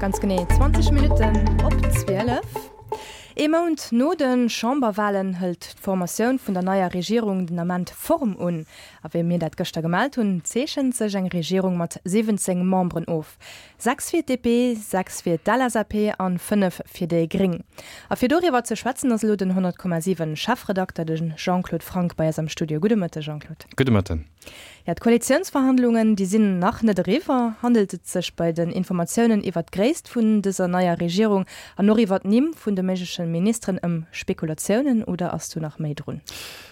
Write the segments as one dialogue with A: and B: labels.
A: Ganz genee 20 Minutten op 12. Ee Mount no de Chamberwalen hëlt d'Formatioun vun der neier Regierung den Ament Form un. A wéi mir dat gëschter gemellt hunn, zeechent sech eng Regierung mat 17 Memberen of. 6 fir d'DP, 6 fir d'LSAP an 5 fir déi Gréng. A fir doriwwer ze schwätzen ass elo den 100,7 Chefredakter, de Jean-Claude Franck bei eis am Studio. Gudde Mëtte Jean-Claude.
B: Gudde Mëtten.
A: Jo, d'Koalitiounsverhandlungen, déi sinn nach net eriwwer. Handelt et sech bei den Informatiounen iwwer d'Gréisst vun dëser neier Regierung an och iwwer d'Nimm vun de méigleche Ministeren ëm Spekulatiounen oder ass do nach méi drun?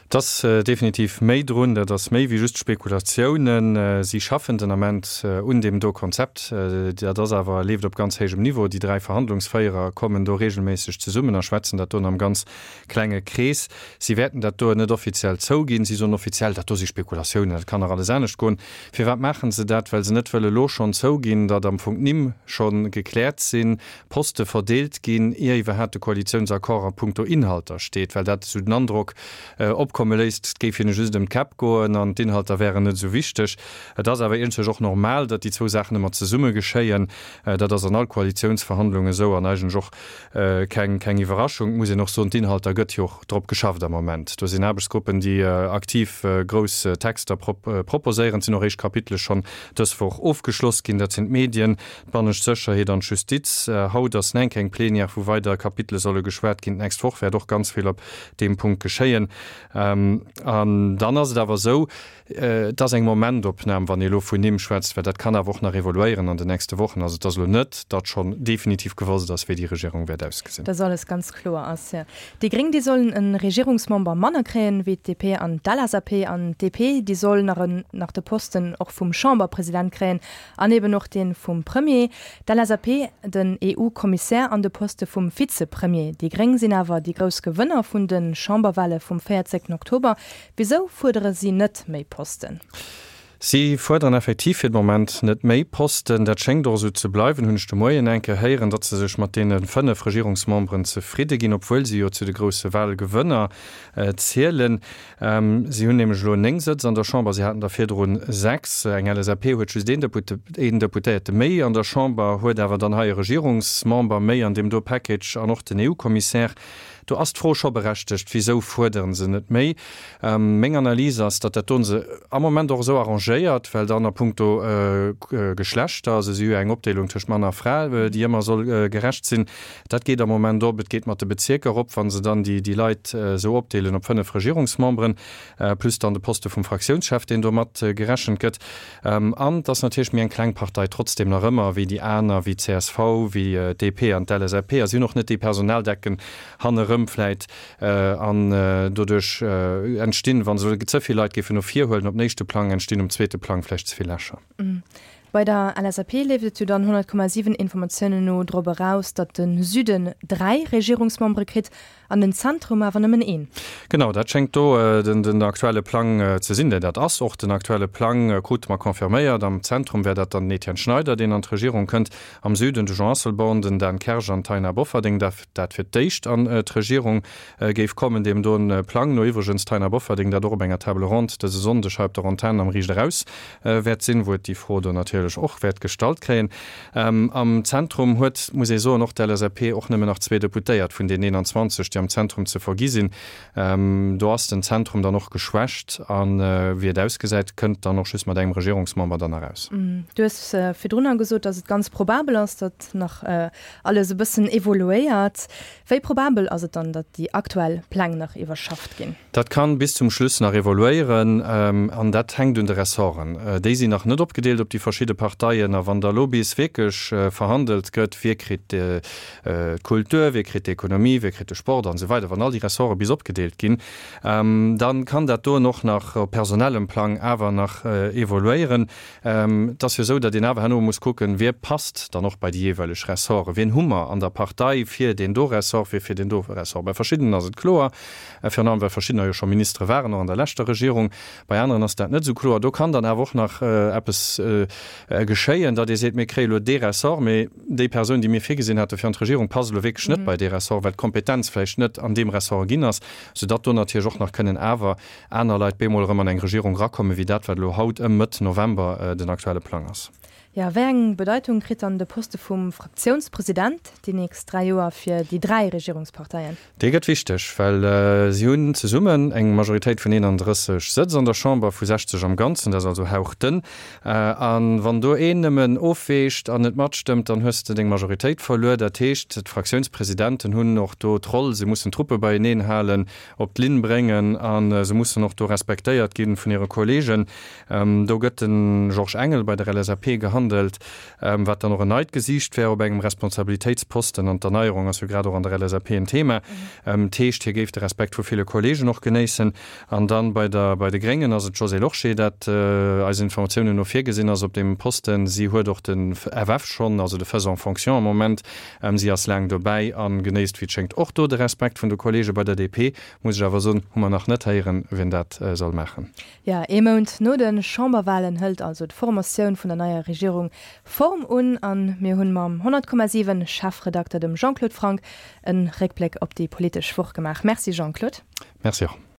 B: Et ass definitiv méi drun. Dat ass méi wéi just Spekulatiounen. Si schaffen den Ament un deem do Konzept. Dat ass awer, leeft op ganz héijem Niveau. Déi 3 Verhandlungsféierer kommen do reegelméisseg zesummen a schwätzen dat do am ganz Klenge Krees. Si wäerten dat do net offiziell zouginn. Si soen offiziell, dat do si Spekulatiounen, dat kann nach alles anescht goen. Firwat maache se dat? Well se net wëlle elo schonn zouginn, datt am Fong d'Nimm scho gekläert sinn, Poste verdeelt ginn, ier iwwerhaapt de Koalitiounsaccord a puncto Inhalter steet, well dat esou den Androck opkomme léisst, et géif hinne just ëm d'Käpp goen an d'Inhalter wären net esou wichteg. Et ass awer iergendwéi och normal, datt déi zwou Saachen ëmmer zesumme geschéien. Dat ass an all Koalitiounsverhandlung esou an eigentlech och Keng keng Iwwerraschung, et muss een och soen, d'Inhalter gëtt jo och drop geschafft am Moment. Do sinn Aarbechtsgruppen, déi aktiv grouss Texter proposéieren. Et sinn och éischt Kapitele schonn dës Woch ofgeschloss ginn. Dat sinn d'Medien, d'bannescht Sécherheet an d'Justiz. Haut ass enk eng Plenière, wou weider Kapitele solle geschwat ginn. D'nächst Woch wäert och ganz vill op deem Punkt geschéien. An dann ass et awer esou, Et ass eng Momentopnam, wann ee elo vun Nimm schwätzt, well dat kann awer och nach evoluéieren an den nächste Wochen. Also et ass elo net, datt schonn definitiv gewosst ass, wéi déi Regierung wäert ausgesinn.
A: Dass alles ganz kloer ass, jo. Déi Gréng, déi sollen e Regierungsmember manner kréien, wéi d'DP an d'LSAP. An d'DP, déi soll nach en nach de Posten och vum Chamberpresident kréien an eben och dee vum Premier. D'LSAP den EU-Kommissär an de Poste vum Vizepremier. Déi Gréng sinn awer déi grouss Gewënner vun de Chamberwale vum 14 Oktober. Wisou fuerdere si net méi Posten?
B: Si fuerderen effektiv fir de Moment net méi Posten. Dat schéngt och esou ze bleiwen, hunn ech de Moien eng Kéier héieren, datt se sech mat deene 5 Regierungsmemberen zefridde ginn, obwuel si jo zu de grousse Wahlgewënner zielen. Si hunn nämlech elo 9 Sëtz an der Chamber, si haten der virdrun 6. Eng LSAP huet just een Deputéierte méi an der Chamber, huet awer dann hei e Regierungsmember méi an deem do Package an och den EU-Kommissär. Do ass d'Fro scho berechtegt, Wisou fuerdere se net méi? Meng Analys ass, datt dat do se am Moment och esou arrangéiert, well dann a puncto Geschlechter, also si hu jo eng Opdeelung tëscht Mann a Fra, déi ëmmer soll gerecht sinn, dat geet am Moment op. Et geet mat de Bezierker op, wa se dann déi Leit esou opdeelen op 5 Regierungsmemberen, plus dann de Poste vum Fraktiounschef, deen do mat gerechent gëtt. An et ass natierlech méi eng kleng Partei trotzdem nach ëmmer wéi déi aner, wéi d'CSV, wéi d'DP an d'LSAP. A si hunn och net déi Personaldecken hannerëm vläit. An doduerch entstinn, wa se ze vill Leit géifen no vir huelen op den éischte Plang, entstinn um zweete Plang vläicht ze vill Lächer.
A: Bei der LSAP leeft et jo dann 100,7 Informatiounen no drop eraus, datt de Süden 3 Regierungsmembere kritt An den Zentrum awer nëmmen een.
B: Genau, dat schéngt do den aktuelle Plang ze sinn. Dat ass och den aktuelle Plang, krute mer confirméiert. Am Zentrum wär dat dann den Etienne Schneider, deen an d'Regierung kënnt. Am Süden de Jean Asselborn, den Dan Kersch an d'Taina Bofferding, dat fir d'éischt an d'Regierung géif kommen. Deem doen Plang no iwwregens d'Taina Bofferding, dat och op enger Table ronde dëse Sonndeg hei op der Antenn am Riicht Eraus wäert sinn, wou et déi Fro do natierlech och wäert gestallt kréien. Am Zentrum huet, muss ee soen, och d'LSAP och nëmmen nach zwee Deputéiert vun den 21, déi am Zentrum ze vergi sinn. Do ass den Zentrum dann och geschwächt a wéi et ausgesäit, kënnt dann och just mat engem Regierungsmember dann eraus.
A: Du hues virdrunner gesot, datt et ganz probabel ass, datt nach alles e bëssen evoluéiert. Wéi probabel ass et dann, datt déi aktuell Pläng nach iwwerschafft ginn?
B: Dat kann bis zum Schluss nach evoluéieren an dat hänkt un de Ressorten. Déi sinn nach net opgedeelt op déi verschidde Parteien. A wann da lo bis wierklech verhandelt gëtt, wie kritt d'Kultur, wie kritt d'Ekonomie, wie kritt de Sport an esou weider, wann all déi Ressorte bis opgedeelt ginn, da kann dat doen och nach op personellem Plang awer nach evoluéieren. Et ass jo esou, datt een awer herno muss kucken, wie passt dann och bei déi jeeweileg Ressorten, wien hu mer an der Partei fir deen do Ressort, wie fir deen do Ressort. Bei verschiddenen ass et kloer, virun allem well verschiddener jo scho Ministere waren, och an der leschter Regierung. Bei aneren ass dat net esou kloer. Do kann dann awer och nach eppes geschéien, datt ee seet, mir kréie lo dee Ressort, mee déi Persoun, déi mir virgesinn hate fir an d'Regierung, passt elo wierklech net bei dee Ressort, well d'Kompetenz vläicht net an deem Ressort ginn ass, soudatt do natierlech och nach kënnen awer aner Leit bemol erëm an eng Regierung erakommen, wéi dat, wat elo haut ëm Mëtt November den aktuelle Plang ass.
A: Jo, wéi eng Bedeitung kritt dann de Poste vum Fraktiounspresident déi nächst 3 Joer fir déi 3 Regierungsparteien?
B: Dee gëtt wichteg, well si hunn zesummen eng Majoritéit vun 31 Sëtz an der Chamber, vu 60 am Ganzen, dat ass also hauchdënn. A wann do een nëmmen ofweecht an net matstëmmt, dann hues de deng Majoritéit verluer. Dat heescht, d'Fraktiounspresidenten hunn och do d'Roll, se mussen d'Truppe beieneen halen, op d'Linn bréngen a se mussen och do respektéiert gi vun hire Kollegen. Do gëtt de Georges Engel bei der LSAP gehandelt, wat dann och en neit Gesiicht wär op engem Responsabilitéitsposten. An d'Erneierung ass jo grad och an der LSAP en Thema. Dat heescht, hie géif de Respekt vu ville Kollegen och genéissen. An dann bei der bei de Gréngen ass et d'Josée Lorsché, dat eisen Informatiounen no virgesinn ass op deem Posten. Si huet och de FF schonn, also de Faisant fonction am Moment. Si ass laang dobäi a genéisst, wéi et schéngt, och do de Respekt vun de Kollege. Bei der DP, muss ech awer soen, hu mer nach net héieren, wien dat soll maachen.
A: Jo, ee Mount no de Chamberwalen hëlt also d'Formatioun vun der neier Regierung Form un a mir hunn mam 100,7 Chefredakter, dem Jean-Claude Franck, e Réckbléck op déi politesch Woch gemaach. Merci Jean-Claude.
B: Merci och.